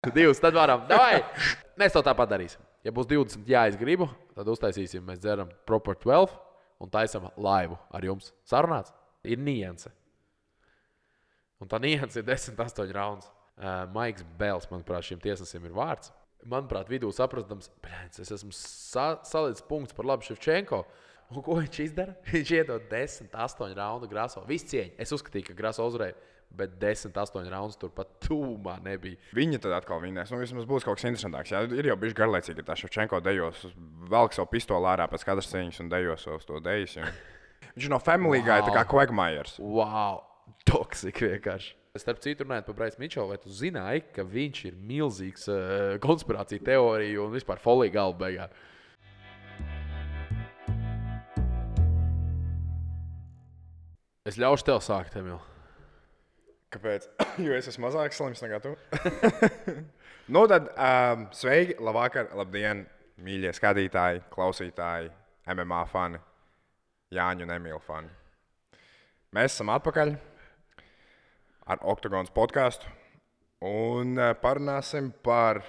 Divas, tad varam. Davai! Mēs to tāpat darīsim. Ja būs 20, jā, es gribu, tad uztaisīsim, mēs dzeram Proper 12 un taisam laivu ar jums. Sarunāts? Ir nianse. Un tā nianse ir 10-8 rauns. Maiks Bēls, manuprāt, šim tiesnesim ir vārds. Manuprāt, vidū saprastams, es esmu salicis punkts par labu Ševčenko. Un ko viņš izdara? Viņš iedod 10-8 raundu Graso. Viss cieņa. Es uzskatīju, ka Graso uzvarēja, bet 10-8 raundus turpat tūmā nebija. Viņi tad atkal vinnēs. Vismaz būs kaut kas interesantāks. Jā, ir jau bijuši garlaicīgi, ka tā Ševčenko dejos, velk savu pistoli ārā pēc katras cīņas un dejos uz to dejas. Viņš ir no Family Guy, tā kā Quagmires. Wow! Toksik vienkārši. Starp citu, runājot par Bryce Mitchell, vai tu zināji, ka viņš ir milzīgs konspirācija teorija un vispār folija galva beigā? Es ļaušu tev sākt, Emīl. Kāpēc? Jo es esmu mazāk slims nekā tu. Nu tad, sveiki, labvakar, labdien, mīļie skatītāji, klausītāji, MMA fani, Jāņu un Emīla fani. Mēs esam atpakaļ ar Oktagons podcastu un parunāsim par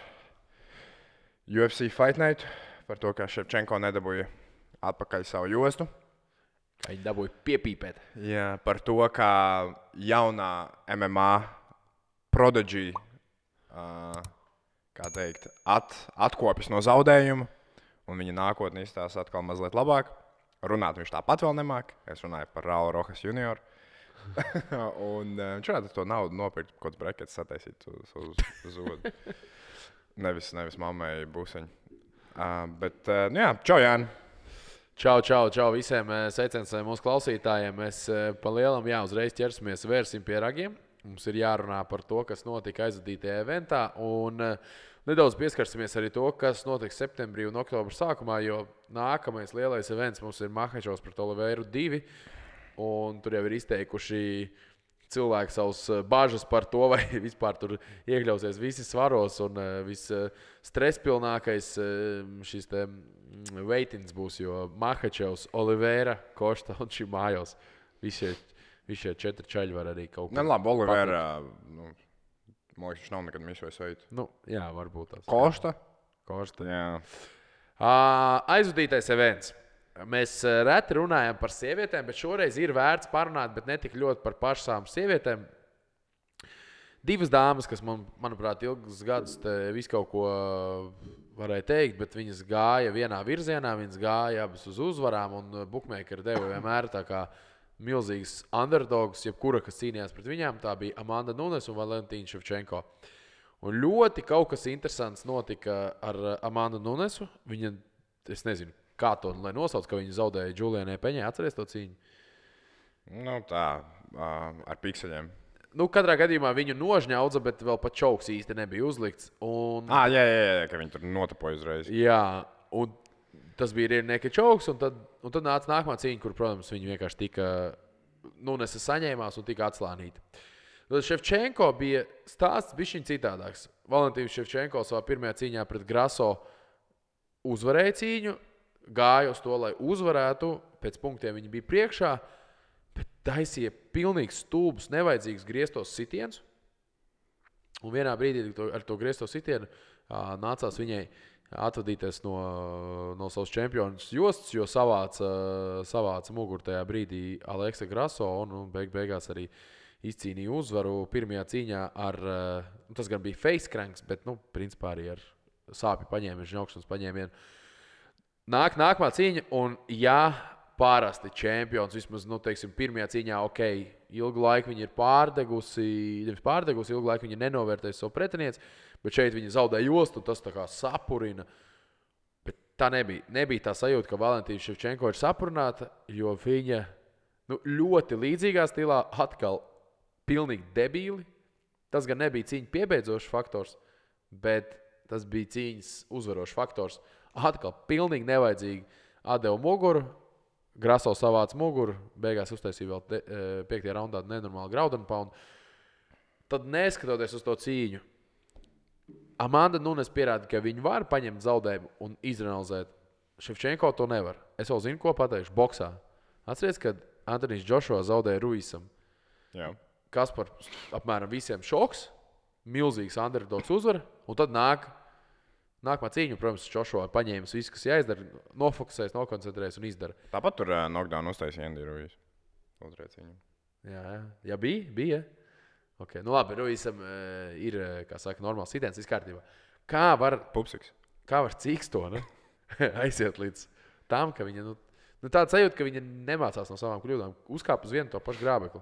UFC Fight Night, par to, ka Ševčenko nedabūja atpakaļ savu jostu. Kā viņi dabūja piepīpēt. Jā, par to, kā jaunā MMA prodigy, kā teikt, atkopjas no zaudējuma, un viņa nākotnē izstāsta atkal mazliet labāk. Runāt viņš tāpat vēl nemāk. Es runāju par Raulu Rojas junioru. Un viņš varētu to naudu nopirkt, kaut kāds brekets sataisīt uz zodu. Nevis mammai būseņu. Bet, jā, čau, Jāni. Čau visiem sveiciens mūsu klausītājiem. Mēs pa lielam, uzreiz ķersimies, vērsim pie ragiem. Mums ir jārunā par to, kas notika aizvadītajā eventā. Un nedaudz pieskarsimies arī to, kas notiks septembrī un oktobra sākumā, jo nākamais lielais events mums ir Makhačovs pret Oliveiru 2. Un tur jau ir izteikuši cilvēki savus bažas par to, vai vispār tur iekļausies visi svaros un visstresspilnākais šis te veitins būs, jo Makhačovs, Oliveira, Košta un Šimājos. Visi šie 4 čaļi var arī kaut kā. Labi, Oliveira, man liekas, viņš nav nekad misvējis veidu. Jā, varbūt tās. Košta, jā. Aizvadītais events. Mēs reti runājam par sievietēm, bet šoreiz ir vērts parunāt, bet ne tik ļoti par pašām sievietēm. 2 dāmas, kas manuprāt, ilgus gadus visu kaut ko varēja teikt, bet viņas gāja vienā virzienā, viņas gāja abas uz uzvarām, un bookmakeri deva vienmēr tā kā milzīgas underdogs, jebkura, kas cīnījās pret viņām. Tā bija Amanda Nunes un Valentīna Ševčenko. Un ļoti kaut kas interesants notika ar Amandu Nunesu. Viņa, es nezinu, kā to lai nosauc, ka viņa zaudēja Julianai Peņai. Atceries to cīņu? Tā, ar pikseļiem. Katrā gadījumā viņu nožņaudza, bet vēl pat čauks īsti nebija uzlikts. Jā, ka viņi tur notapoja uzreiz. Jā, un tas bija Rierneka čauks, un tad nāca nākamā cīņa, kur, protams, viņi vienkārši tika Nunesa saņēmās un tika atslānīta. Tad Ševčenko bija stāsts bišķiņ citādāks. Valentīns Ševčenko savā pirmajā cīņā pret Graso uzvarēja cīņu, gāja uz to, lai uzvarētu, pēc punktiem viņi bija priekšā, bet taisīja pilnīgi stulbus, nevajadzīgus grieztos sitienus. Un vienā brīdī ar to griezto sitienu nācās viņai atvadīties no savas čempionas jostas, jo savāca muguru tajā brīdī Aleksa Graso un beigās arī izcīnīja uzvaru pirmajā cīņā ar, tas gan bija face cranks, bet, principā arī ar sāpju paņēmienu, žņaukšanas paņēmienu. Nākamā cīņa, un parasti čempions, vismaz, pirmajā cīņā, ilgu laiku viņa ir pārdegusi, ilgu laiku viņa nenovērtējusi savu pretinieci, bet šeit viņa zaudēja jostu, tas tā kā sapurina. Bet tā nebija tā sajūta, ka Valentīna Ševčenko ir sapurināta, jo viņa ļoti līdzīgā stilā atkal pilnīgi debīli. Tas gan nebija cīņa piebeidzošs faktors, bet tas bija cīņas uzvarošs faktors. Atkal pilnīgi nevajadzīgi atdeva muguru, Graso savāca muguru, beigās uztaisīja vēl 5. raundā nenormāli ground and pound. Tad neskatoties uz to cīņu, Amanda Nunes pierāda, ka viņi var paņemt zaudējumu un izanalizēt. Ševčenko to nevar. Es vēl zinu, ko pateikšu boksā. Atceries, kad Antonijs Džošua zaudēja Ruisam. Jā. Kas par apmēram visiem šoks, milzīgs underdogs uzvar, un tad nākamā cīņa, protams, Joshua paņēmis visu, kas jāizdara, nofokusēs, nokoncentrēs un izdara. Tāpat tur knockdown uztaisīja Andy Ruiz. Otrajā cīņā. Jā, bija. Okay. Nu labi, Ruizam ir, kā saka, normāls sitiens, viss kārtībā. Kā var Cīkstona aiziet līdz tam, ka viņa, tāda sajūta, ka viņa nemācās no savām kļūdām, uzkāp uz vienu to pašu grābekli.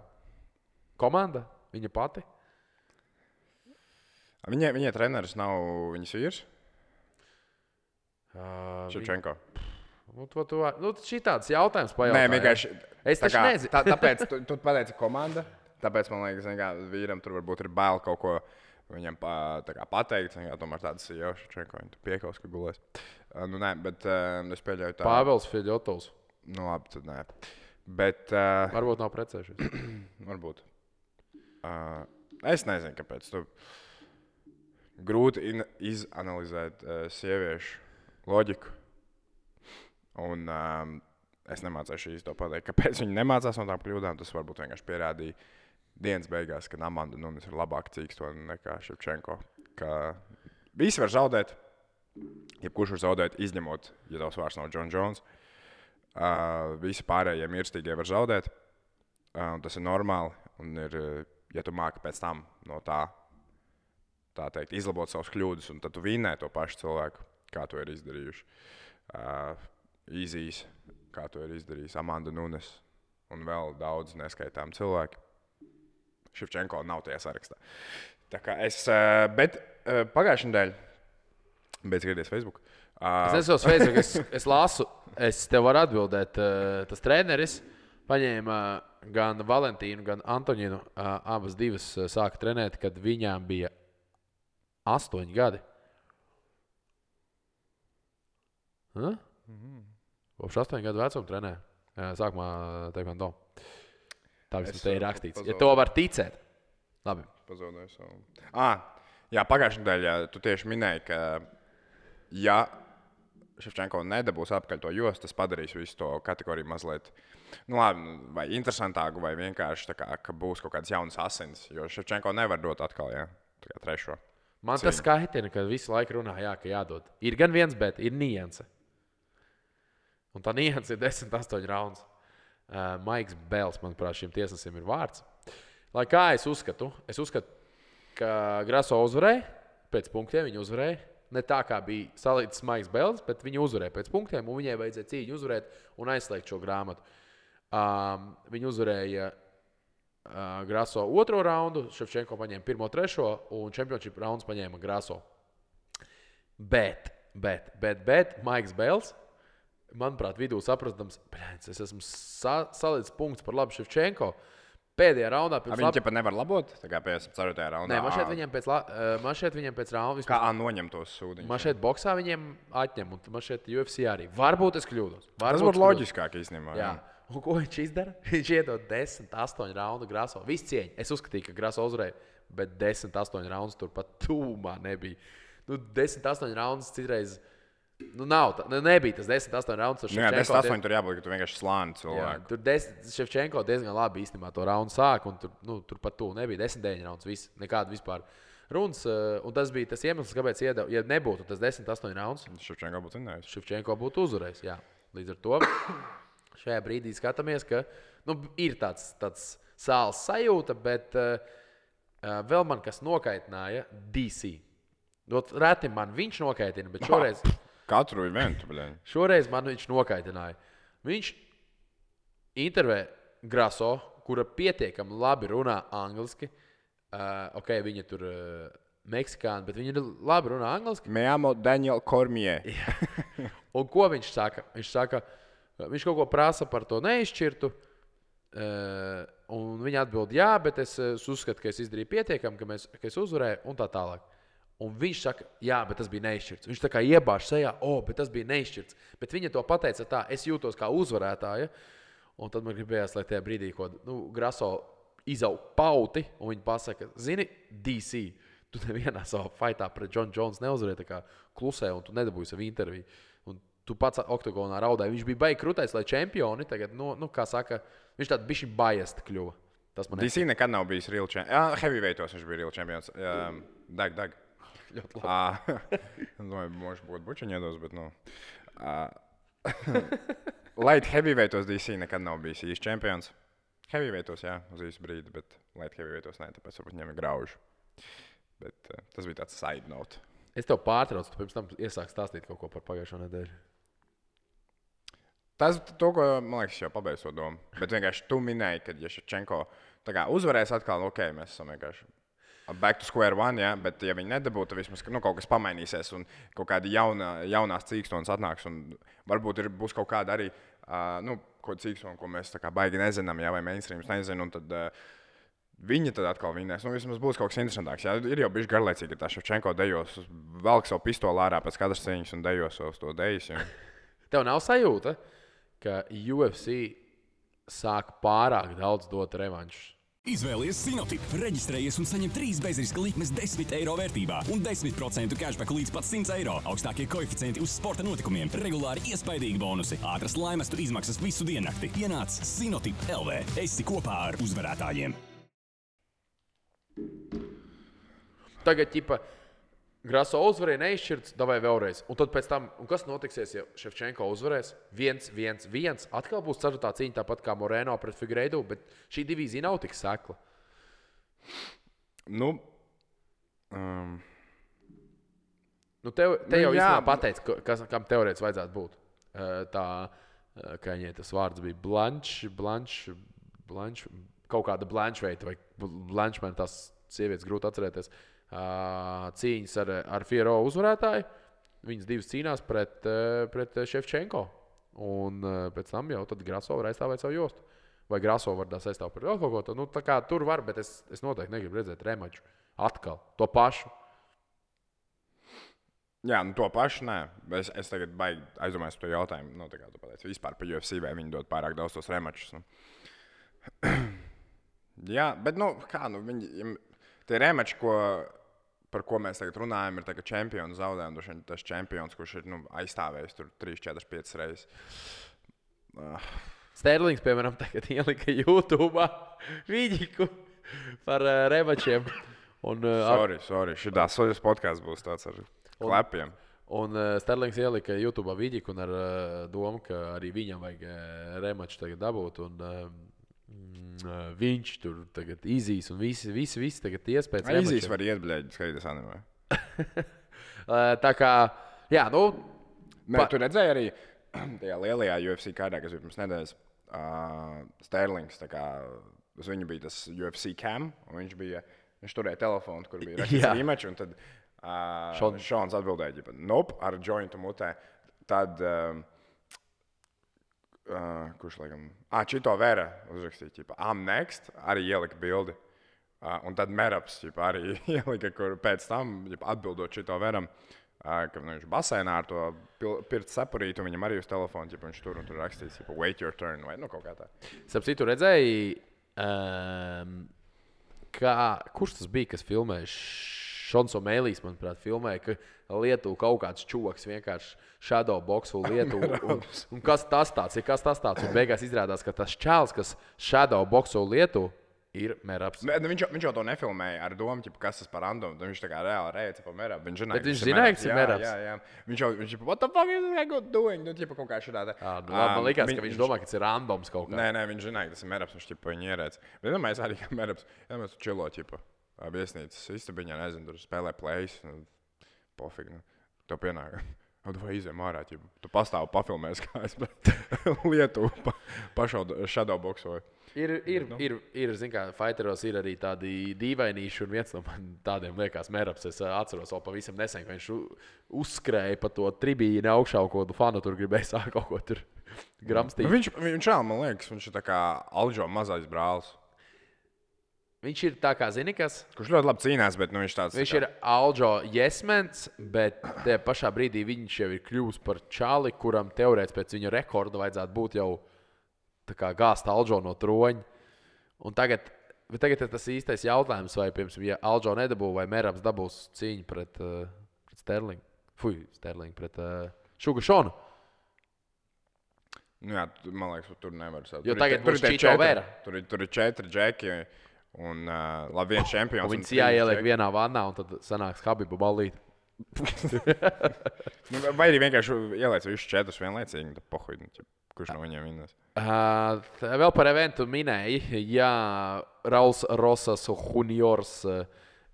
Komanda, viņa pati. Viņai treneris nav viņas vīrs? Ševčenko. Šī tāds jautājums pajautā. Nē, vienkārši. Es taču nezinu. Tāpēc tu pateici komanda. Tāpēc man liekas, ka vīram tur varbūt ir bail kaut ko viņam pateikt. Tomēr tāds ir jau Ševčenko. Viņa piekaus, ka gulēs. Nē, bet es pieļauju tā. Pāvels Fedjotovs. Labi, tad nē. Bet. Varbūt nav precējušies. Varbūt. Es nezinu, kāpēc. Grūti izanalizēt sieviešu loģiku. Un es nemācīšu īsti to pateikt, kāpēc viņi nemācās no tām kļūdām. Tas varbūt vienkārši pierādīja dienas beigās, ka Amanda Nunes ir labāka Cīkstona nekā Ševčenko. Ka visi var zaudēt, jebkurš var zaudēt, izņemot, ja tavs vārds nav John Jones. Visi pārējie mirstīgie var zaudēt. Tas ir normāli. Un ir, ja tu māki pēc tam no tā teikt, izlabot savus kļūdas, un tad tu vinnē to pašu cilvēku, kā to ir izdarījuši. Izīs, kā to ir izdarījis Amanda Nunes un vēl daudz neskaitām cilvēki. Ševčenko nav tajā sarakstā. Tā kā bet pagājušajā nedēļā, beidz skatīties Facebook. Es nesos Facebook, es lasu, es tev varu atbildēt. Tas treneris paņēma gan Valentīnu, gan Antoņinu, abas divas sāka trenēt, kad viņām bija 8 gadi. Kopš 8 gadu vecuma trenē. Sākumā taekwondo. Tā vismaz te ir rakstīts. Ja to var ticēt. Labi. Pazaudēju savu. Jā, pagājušajā nedēļā tu tieši minēji, ka ja Ševčenko nedabūs apkaļ to jostu, tas padarīs visu to kategoriju mazliet vai interesantāku, vai vienkārši tā kā, ka būs kaut kāds jauns asins. Jo Ševčenko nevar dot atkal, tā kā trešo. Man tas skaitina, ka visu laiku runā, ka jādod. Ir gan viens, bet ir nianse. Un tā nianse ir 10-8 rauns. Maiks Bels, manuprāt, šim tiesnesim ir vārds. Lai kā es uzskatu, ka Graso uzvarēja, pēc punktiem viņa uzvarēja. Ne tā kā bija salīdzināts Maiks Bels, bet viņa uzvarēja pēc punktiem, un viņai vajadzēja cīņu uzvarēt un aizslēgt šo grāmatu. Viņa uzvarēja Graso otro raundu, Ševčenko paņēma pirmo, trešo, un championship rauns paņēma Graso. Bet Maiks Bels, manuprāt, vidū saprastams, es esmu salīdz punkts par labu Ševčenko. Pēdējā raundā pēc Viņi ķepa nevar labot, tā kā 54. raundā? Nē, man šeit viņiem pēc raundas. Kā noņem tos sūdiņus? Man šeit boksā viņiem atņem, un man šeit UFC arī. Varbūt es kļūdos. Tas būtu loģiskāk īstenībā. Jā. Un ko viņš izdara? Viņš iedod 10-8 raundu Graso. Viss cieņa. Es uzskatīju, ka Graso uzvarēja, bet 10-8 raundus turpat tūmā nebija. 10-8 raundus citreiz... nav tā. Nebija tas 10-8 raundus. Jā, 10-8 tur jābūt, ka tu vienkārši slāni cilvēku. Tur Ševčenko diezgan labi īstenībā to raundu sāk, un turpat tū nebija 10-9 raundus. Viss, nekāda vispār runas. Un tas bija tas iemesls, kāpēc iedeva. Ja nebūtu tas 10-8 raundus, Ševčenko būtu vinnējis. Ševčenko būtu uzvarējis. Jā. Līdz ar to šajā brīdī skatāmies, ka ir tāds sāls sajūta, bet vēl man kas nokaitināja DC. Reti man viņš nokaitina, bet šoreiz... Katru eventu, bļaļ. Šoreiz man viņš nokaitināja. Viņš intervē Graso, kura pietiekami labi runā angliski. Viņa tur meksikāna, bet viņa labi runā angliski. Me llamo Daniel Cormier. Un ko viņš saka? Viņš kaut ko prasa par to neizšķirtu. Un viņa atbild, jā, bet es uzskatu, ka es izdarīju pietiekami, ka es uzvarēju un tā tālāk. Un viņš saka, jā, bet tas bija neizšķirts. Viņš tā kā iebāž sejā, bet tas bija neizšķirts. Bet viņa to pateica tā, es jūtos kā uzvarētāja. Un tad man gribējās, lai tajā brīdī, ko Graso izaug pauti, un viņa pasaka, zini, DC, tu nevienā savā fightā pret John Jones neuzvarēji, tā kā klusē, un tu nedabūji savu interviju. Un tu pats oktagonā raudāji. Viņš bija baigi krūtais, lai čempioni tagad, kā saka, viņš tād bišķi biased kļuva. DC nekad nav bijis real champions. Jā, heavyweightos viņš bija real champions. Dag. Ļoti labi. Domāju, možda būtu bučiņi iedos, bet, light heavyweightos DC nekad nav bijis īsts čempions. Heavyweightos, jā, uz īsu brīdi, bet light heavyweightos ne, tāpēc varbūt viņam ir grauži. Bet tas bija tāds side note. Es tev pārtraucu, tu pirms tam iesāki stāstīt kaut ko par pagājušo nedēļu. Tas, ko, man liekas, jau pabeidzu to domu. Bet vienkārši tu minēji, ka ja Ševčenko uzvarēs atkal, ok, mēs esam vienkārši back to square one, ja? Bet ja viņi nedabūtu, tad vismaz kaut kas pamainīsies un kaut kādi jaunās cīkstonas atnāks. Un varbūt būs kaut kāda arī kaut kāda cīkstona, ko mēs tā kā baigi nezinām, ja? Vai mainstreams nezinu. Un tad viņi tad atkal vinnēs. Vismaz būs kaut kas interesantāks. Ja? Ir jau bijuši garlaicīgi, ka tā Ševčenko dejos, velk savu pistoli ārā pēc katras cīņas un dejos uz to dejas. Ja? Tev nav sajūta, ka UFC sāk pārāk daudz dot revanšus? Izvēlies Sinotip, reģistrējies un saņem 3 bezriska likmes 10 eiro vērtībā un 10% cashback līdz pat 100 eiro. Augstākie koeficienti uz sporta notikumiem, regulāri iespaidīgi bonusi, ātras laimestu izmaksas visu diennakti. Ienāc Sinotip LV. Esi kopā ar uzvarētājiem. Tagad, Graso uzvarēja neizšķirts, davai vēlreiz. Un tad pēc tam, kas notiksies, ja Ševčenko uzvarēs? 1-1-1. Atkal būs ceturtā cīņa, tāpat kā Moreno pret Figueiredo, bet šī divīzija nav tik sekla. Te jau īstenībā pateici, kam teorētiski vajadzētu būt. Kā viņai tas vārds bija Blanche, kaut kāda Blanche veita, vai Blanche man tās sievietes grūti atcerēties. Cīņas ar Fiero uzvarētāju. Viņas divas cīnās pret Ševčenko. Un pēc tam jau tad Graso var aizstāvēt savu jostu. Vai Graso var aizstāvēt par vēl kaut ko. Tā kā tur var, bet es noteikti negribu redzēt remaču. Atkal. To pašu. Jā, to pašu nē. Es tagad baigi aizdomājos par to jautājumu. Tā kā tu pateici, vispār par UFC, vai viņi dod pārāk daudz tos remačus. Jā, bet viņi... Tie remači, par ko mēs tagad runājam, ir tā, ka čempionu zaudējumi. Tas čempions, kurš ir aizstāvējis tur 3, 4, 5 reizes. Sterlings, piemēram, tagad ielika YouTube Viģiku par remačiem. Sorry. Šitās podcasts būs tāds ar klepiem. Un Sterlings ielika YouTube Viģiku un ar domu, ka arī viņam vajag remaču tagad dabūt. Viņš tur tagad izīs un visi tagad iespējas. Izīs var iet, bļēģi, skatīties animē. Tā kā, jā, Tu redzēji arī tajā lielajā UFC kārdā, kas bija pirms nedēļas, Sterlings, tā kā uz viņu bija tas UFC cam, un viņš turēja telefonu, kur bija rakstīts rematch, un tad Šons atbildēja, ar jointu mutē. Tad... kurš laikam... Čito Vera uzrakstīja, I'm next, arī ielika bildi. Un tad Meraps arī ielika, kur pēc tam atbildot Čito Veram, ka viņš basēnā ar to pirts sapurītu, viņam arī uz telefonu, viņš tur un tur rakstīts, wait your turn, vai kaut kā tā. Sapsīt, tu redzēji, kurš tas bija, kas filmēja? Šons O'Malley's, manuprāt, filmēja, ka Lietuva kaut kāds čūvaks vienkārši shadowboxu Lietuvu. Un kas tas tāds ir? Un beigās izrādās, ka tas čāls, kas shadowboxu Lietuvu, ir Meraps. Viņš jau to nefilmēja ar domu, kas tas par randomu. Viņš tā kā reāli reica pa Merapu. Bet viņš zināja, ka tas ir Meraps. Jā. Viņš what the fuck is this guy doing? Kaut kā šādā. Man likās, ka viņš domā, ka tas ir randoms kaut kā. Nē, viņš zināja, ka tas ir Meraps. Viņš viņu ierēca. Bet domāju, arī ka Meraps. Jā, mēs tu čilo, viesnīcas istabiņā, nezinu, tur spēlē plays. Pofīgi. Tev pienāk. Vai izējām ārā, tu pastāvi pafilmēs, kā es Lietuvu shadowboxoju. Ir, zin kā, fighteros ir arī tādi dīvainīši, un viens no man tādiem liekas Meraps. Es atceros vēl pavisam nesen, ka viņš uzskrēja pa to tribīni augšā, ko tu fanu tur gribēja sākt kaut ko tur gramstīt. Viņš vēl, man liekas, viņš ir tā kā Alžo mazais brālis. Viņš ir tā kā, zini kas? Kurš ļoti labi cīnās, bet viņš tāds... Viņš ir Alžo jesmens, bet tajā pašā brīdī viņš jau ir kļuvis par čāli, kuram teorētiski pēc viņa rekorda vajadzētu būt jau tā kā gāzt Alžo no troņa. Un tagad ir tas īstais jautājums, vai, piemēram, ja Alžo nedabū, vai Meraps dabūs cīņu pret Sterlingu. Sterlingu pret Šugu Šonu. Jā, man liekas, tur nevar sākt. Jo tagad būs Čito Vera. Tur ir 4 džeki. Un labi, viens čempions. Un viņas jāieliek vienā vannā, un tad sanāks Habiba ballīt. Vai arī vienkārši ieliec visus 4 vienlaicīgi, tad pohuj, kurš no viņiem vinnēs. Vēl par eventu minēja, jā, Rauls Rosas Juniors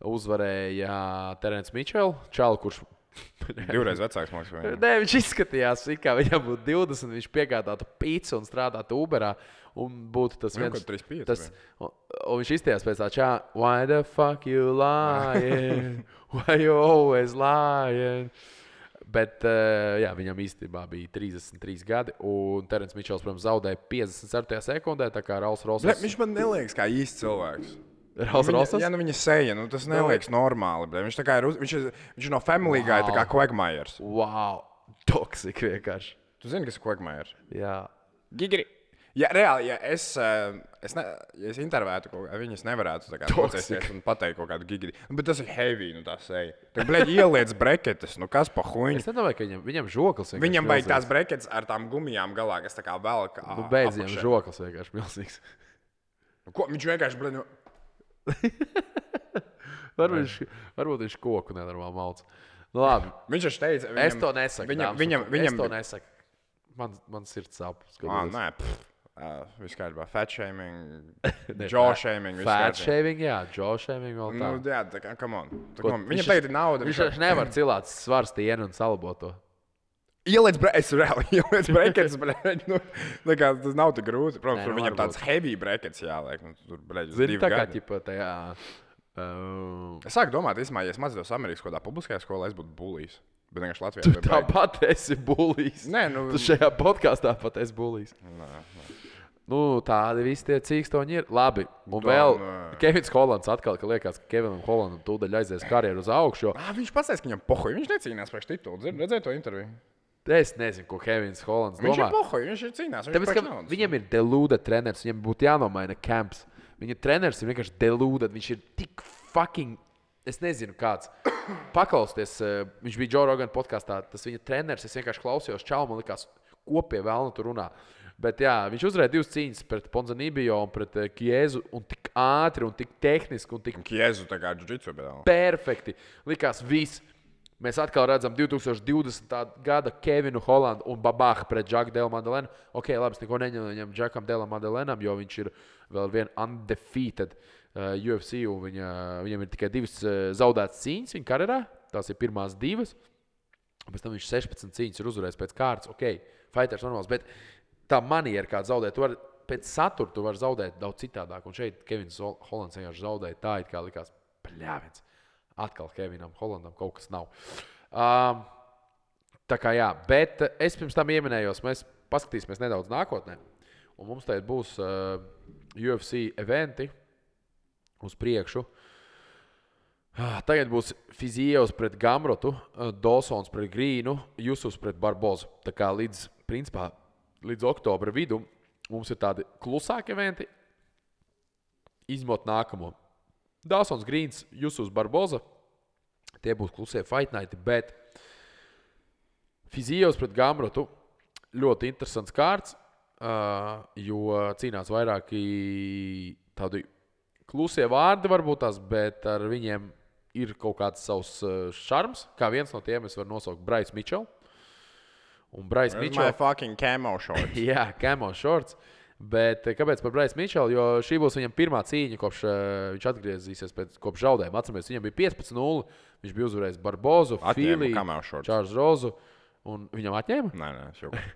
uzvarēja Terence Mitchell, čalu, kurš 2 reizes vecāks mākslinieks vai ne? Nē, viņš izskatījās, kā viņam būtu 20, viņš piegādātu pīci un strādātu Uberā. Un būtu tas viens. Un viņš izteicās pēc tā čā, why the fuck you lying? Why you always lying? Bet jā, viņam īstenībā bija 33 gadi, un Terence Mitchells, protams, zaudēja 54. sekundē, tā kā Rauls Rosas. Viņš man neliekas kā īsts cilvēks. Rauls Rosas? Jā, viņa seja, tas neliekas normāli. Viņš, kā viņš ir no Family Guy, tā kā Quagmires. Wow, toksik vienkārši. Tu zini, kas ir Quagmires? Jā. Gigri. Jā, reāli, ja es intervētu kaut ko, viņas nevarētu tā kā nocēsties un pateikt kaut kādu gigri. Bet tas ir heavy, tā seja. Tā, bleģi, ieliec breketes, kas pa huņu. Es nedomāju, ka viņam žoklis vienkārši viņam vajag tās breketes ar tām gumijām galā, kas tā kā velk beidz viņam žoklis vienkārši milzīgs. Ko? Viņš vienkārši, bleģi, Varbūt viņš koku nenormāli malc. Nu, labi. Viņš taču teica, es to nesaku. Viņam to nesaku. Man sirds sāp. Nē, viss kārtībā. Fat shaming, jaw shaming. Fat shaming, jā, jaw shaming vēl tā. Jā, tā kā, come on. Viņam tagad ir nauda. Viņš nevar cilāt svars tienu un salabot to. Ieliec breketes, tas nav tik grūti. Protams, tur viņam tāds heavy breketes jāliek. Tur, zini, tā kā ķipa tajā... Es sāku domāt, ja es mācītos Amerikas kādā publiskajā skolā, es būtu bulijs. Bet vienkārši Latvijā. Tu tāpat esi bulijs. Nē, Tu šajā podkāstā pat esi bulijs. Nu, tādi visi tie cīkstoņi ir. Labi, un vēl Kevins Hollands atkal, ka liekas, ka Kevinam Hollandam tūdaļ aizies karjeru uz augšu. Viņš pasaka, ka viņam pohoja. Viņš necīnās priekš titulu. Redzēji to interviju? Es nezinu, ko Kevins Hollands domā. Viņš ir pohoja, viņš ir cīnās. Tāpēc, ka viņam ir delūda treneris, viņam būtu jānomaina camps. Viņa treneris ir vienkārši delūda, viņš ir tik fucking, es nezinu kāds. Paklausties, viņš bija Joe Rogan podkastā, tas viņa treneris, es vienkārši klausījos čau, man likās, ko pie vēlna tur runā. Bet jā, viņš uzvarēja 2 cīņas pret Ponzanibio un pret Kiezu, un tik ātri, un tik tehniski, un tik Kiezu tā kā jiu-jitsu, bet perfekti. Likās viss. Mēs atkal redzam 2020. gada Kevinu Hollandu un Babaha pret Džaku Delu Madelenu. Ok, labi, es neko neņemu Džakam Delam Madelenam, jo viņš ir vēl vien undefeated UFC, un viņam ir tikai 2 zaudētas cīņas viņa karjerā. Tās ir pirmās 2. Pēc tam viņš 16 cīņas ir uzvarējis pēc kārtas. Ok, fighters normāls, bet tā maniera, kā zaudēt, pēc satura tu vari zaudēt daudz citādāk. Un šeit Kevins Hollands vienkārši zaudēja tā, it kā likās pļāviens. Atkal Kevinam Hollandam kaut kas nav. Tā kā jā, bet es pirms tam ieminējos, mēs paskatīsimies nedaudz nākotnē. Un mums tagad būs UFC eventi uz priekšu. Tagad būs Fizievs pret Gamrotu, Dawsons pret Grīnu, Jusufs pret Barbozu. Tā kā līdz oktobra vidu mums ir tādi klusāki eventi, izmot nākamo. Dawsons, Grīns, Jusufs, Barboza. Tie būs klusie fight nighti, bet Fizievs pret Gamrotu ļoti interesants kārts, jo cīnās vairāki tādi klusie vārdi varbūt tās, bet ar viņiem ir kaut kāds savs šarms. Kā viens no tiem es varu nosaukt Bryce Mitchell. Un Bryce Mitchell... My fucking camo shorts. Jā, camo shorts. Bet kāpēc par Bryce Mitchell? Jo šī būs viņam pirmā cīņa, kopš viņš atgriezīsies kopš zaudējuma. Atceramies, viņam bija 15-0. Viņš bija uzvarējis Barbozu, Fili, Čārls Rozu. Un viņam atņēma? Nē, šobrīd.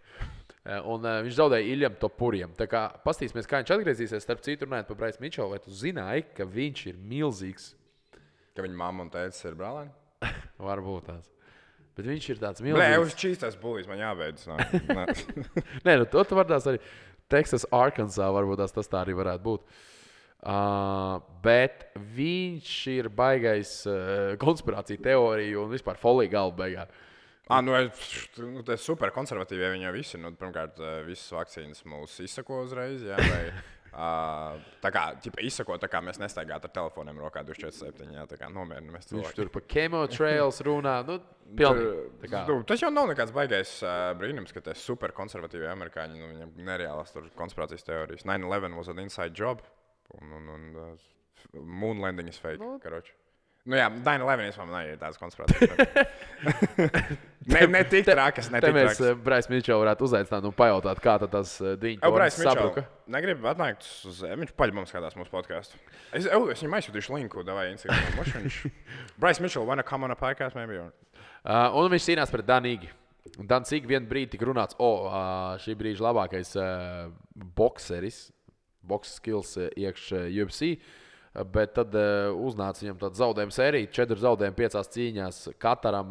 Un viņš zaudēja Iljam Topuriem. Tā kā pastīsimies, kā viņš atgriezīsies. Starp citu, runājot par Bryce Mitchell, vai tu zināji, ka viņš ir milzīgs? Ka viņa mamma un tētis ir brālēni? Varbūt tās. Bet viņš ir tāds milzīgs. Blē, uz čīstās bulīs man jābeidz. Nē, nu to tu var tās arī. Texas, Arkansas, varbūt tas tā arī varētu būt. Bet viņš ir baigais konspirācija teorija un vispār folija galva beigā. Tas super konservatīvi, ja viņi jau visi. Pirmkārt, visas vakcīnas mūs izsako uzreiz. Jā, vai, tā kā izsako, tā kā mēs nestaigātu ar telefoniem rokā 24/7. Jā, tā kā nomierinamies cilvēki. Viņš tur pa chemotrails runā. Tas jau nav nekāds baigais brīnums, ka tie super konservatīvi amerikāņi, viņam nereālas tur konspirācijas teorijas. 9/11 was an inside job. Un Moon landing is fake, karoči. Nu jā, 9/11 vispār ir tāds konspirācijas. ne tik trakas, ne tik trakas. Mēs Brais Mičels varētu uzaicināt un pajautāt, kā tad tas diņu tornis sabruka. Negribu atnākt uz viņš paļbams skatās mūsu podcastu. Es viņam aizsūtīšu linku, davai Instagram. Brais Mičels, wanna come on a podcast, maybe? Un viņš cīnās pret Danīgi. Dans ik vien brīdi tika runāts, šī brīža labākais bokseris, boks skills iekš UFC. Bet tad uznāca viņam tāda zaudējuma sērija. 4 zaudējumi 5 cīņās Kataram,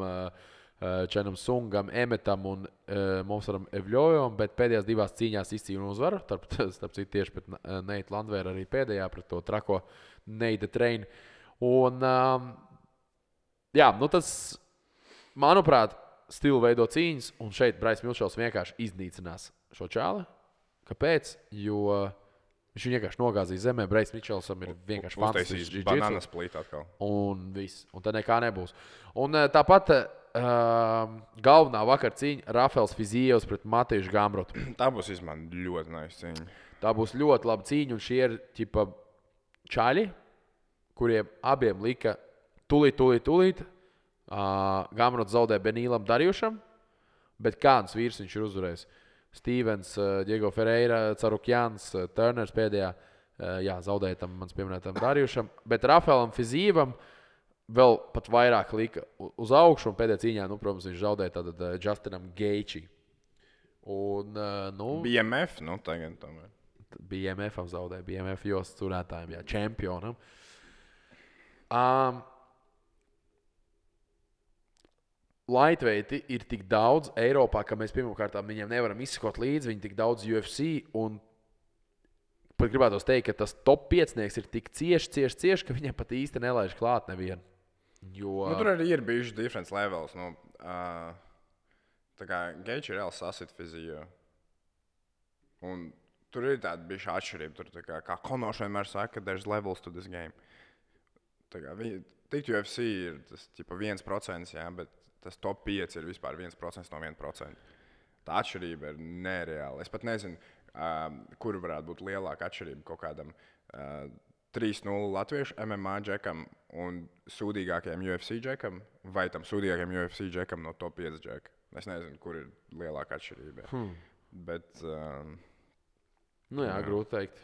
Čenam Sungam, Emetam un Momsaram Evļojam. Bet pēdējās 2 cīņās izcīnīja uzvaru. Starp citu tieši pret Neitu Landvēru arī pēdējā pret to trako Neida Treinu. Un jā, nu tas, manuprāt, stilu veido cīņas. Un šeit Brais Mičels vienkārši iznīcinās šo čāli. Kāpēc? Jo viņš vienkārši nogāzīs zemē. Brais Mičelsam ir vienkārši fantastisks. Bananas plīt atkal. Un viss. Un tad nekā nebūs. Un tāpat galvenā vakar cīņa Rafaels Fizijevs pret Matiešu Gamrotu. Tā būs ļoti nice cīņa. Tā būs ļoti laba cīņa. Un šie ir ķipa čaļi, kuriem abiem lika tūlīt. Gamrots zaudē Benīlam Darjušam. Bet kāds vīrs viņš ir uzvarējis? Stevens, Diego Ferreira, Carukjans, Turners pēdējā, zaudēja tam mans pieminētam Darjušam, bet Rafaelam Fizīvam vēl pat vairāk lika uz augšu, un pēdējā cīņā, protams, viņš zaudēja tātad Justinam Geiči. Un, BMF, tagad tomēr. BMF-am zaudēja, BMF jostas turētājiem, čempionam. Lightweighti ir tik daudz Eiropā, ka mēs pirmkārt viņiem nevaram izsekot līdzi. Viņi tik daudz UFC un pat gribētos teikt, ka tas top 5-nieks ir tik cieši, ka viņiem pat īsti nelaiž klāt nevienu. Jo... tur arī ir bijuši difference levels. Tā kā Geiči ir reāli sasit fizijo. Un tur ir tāda bijuši atšķirība. Tur kā Konors vienmēr saka, there's levels to this game. Tā kā tikt UFC ir tas 1%, jā, bet tas top 5 ir vispār 1% no 1%. Tā atšķirība ir nereāla. Es pat nezinu, kur varētu būt lielāka atšķirība kaut kādam 3-0 latviešu MMA džekam un sūdīgākajam UFC džekam vai tam sūdīgākajam UFC džekam no top 5 džeka. Es nezinu, kur ir lielāka atšķirība. Bet... grūti teikt.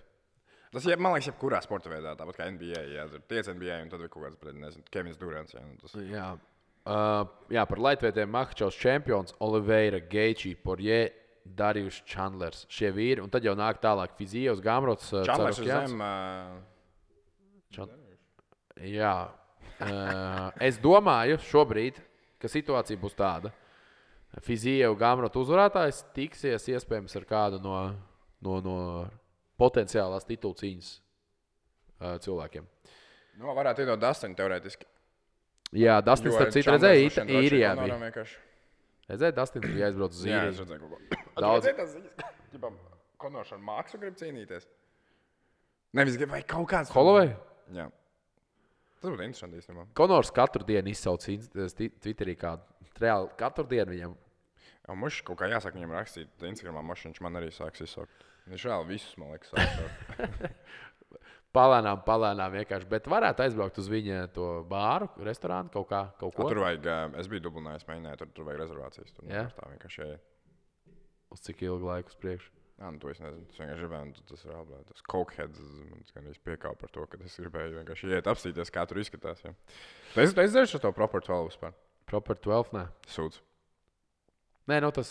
Tas, man liekas, jebkurā sporta veidā, tāpat kā NBA. Tur tiec NBA un tad ir kaut kāds, nezinu, Kevins Durants. Par lightweightiem Makhačovs čempions, Oliveira, Geiči, Poirier, Darjušs, Chandlers. Šie vīri, un tad jau nāk tālāk Fizijevs, Gamrots, Chandlers ir zem. Es domāju šobrīd, ka situācija būs tāda. Fizijevs, Gamrots uzvarētājs tiksies iespējams ar kādu no potenciālās titulu cīņas cilvēkiem. Varētu iedot Dustinu teorētiski. Jā, Dustins, starp citu, redzēja Īrijā. Redzēja, Dustins bija aizbraucis uz Īriju. Jā, es redzēju kaut ko. Redzēja tās ziņas, Konors ar Maksu grib cīnīties? Nevis grib, vai kaut kāds... Holloway? Jā. Tas būtu interesanti īstenībā. Konors katru dienu izsauc Twitterī kādu. Reāli katru dienu viņam. Mums kaut kā jāsaka viņam rakstīt Instagramā, viņš man arī sāks izsaukt. Viņš reāli visus, man liekas, sāks. Palēnām vienkārši, bet varētu aizbraukt uz viņa to bāru, restorānu, kaut ko. Tur vajag, es biju Dublinā, es mēģināju, tur vajag rezervācijas. Tur tā vienkārši Uz cik ilgu laiku uz priekšu? To es nezinu, tas vienkārši gribēju, tas ir reāli. Tas cokeheads, man gan piekāva par to, ka es gribēju vienkārši iet apstīties, kā tur izskatās. Jā. Tu esi dzēris ar to Proper 12 vispār? Proper 12, nē. Sūdz. Nē, tas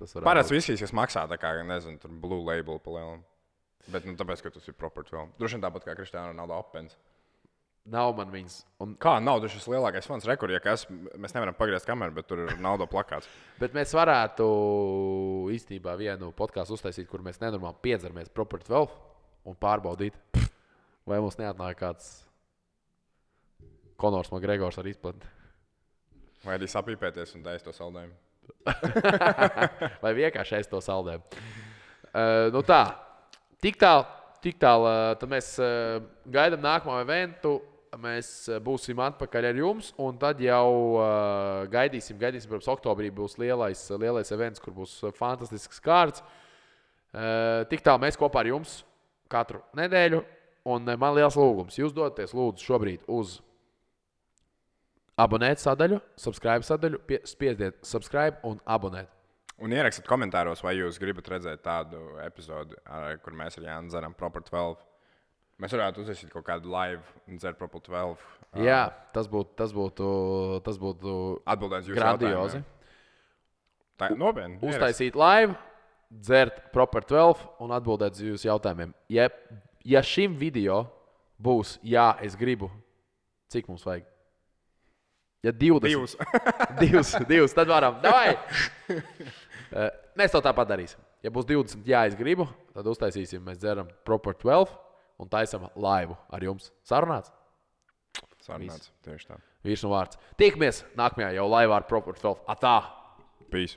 varētu. Parāds viskijas, kas maksā tā kā, nezinu, tur Blue Label pa lielam. Bet tāpēc, ka tas ir Proper 12. Droši vien tāpat kā Kristiāna Ronaldo Opens. Nav man viņas. Kā nav, tas ir lielākais fans rekords, mēs nevaram pagriezt kameru, bet tur ir Ronaldo plakāts. Bet mēs varētu īstenībā vienu podkāstu uztaisīt, kur mēs nenormāli piedzeramies Proper 12 un pārbaudīt, vai mums neatnāk kāds Konors Makgregors ar izplatni. Vai arī sapīpēties un taist to saldējumu. Vai vienkārši ēst to saldējumu. Tā. Tik tālu, tad mēs gaidām nākamo eventu, mēs būsim atpakaļ ar jums, un tad jau gaidīsim, protams, oktobrī būs lielais events, kur būs fantastisks kārts. Tik tālu mēs kopā ar jums katru nedēļu, Un man liels lūgums. Jūs dodaties lūdzu šobrīd uz abonēt sadaļu, subscribe sadaļu, spiediet subscribe un abonēt. Un ierakstiet komentāros, vai jūs gribat redzēt tādu epizodi, kur mēs ar Jānu dzeram Proper 12. Mēs varētu uzsākt kaut kādu live un dzert Proper 12. Jā, tas būtu Atbildēt jūsu grandiozi. jautājumiem. Tā nopietni. Uztaisīt live, dzert Proper 12 un atbildēt uz jūsu jautājumiem. Ja šim video būs, jā, es gribu, cik mums vajag? Ja 20. Divus, tad varam. Davai! Mēs to tāpat darīsim. Ja būs 20, jā, es gribu, tad uztaisīsim, mēs dzeram Proper 12 un taisam laivu ar jums. Sarunāts? Sarunāts, tieši tā. Vīrs un vārds. Tiekamies nākamajā jau laivā ar Proper 12. Atā! Peace.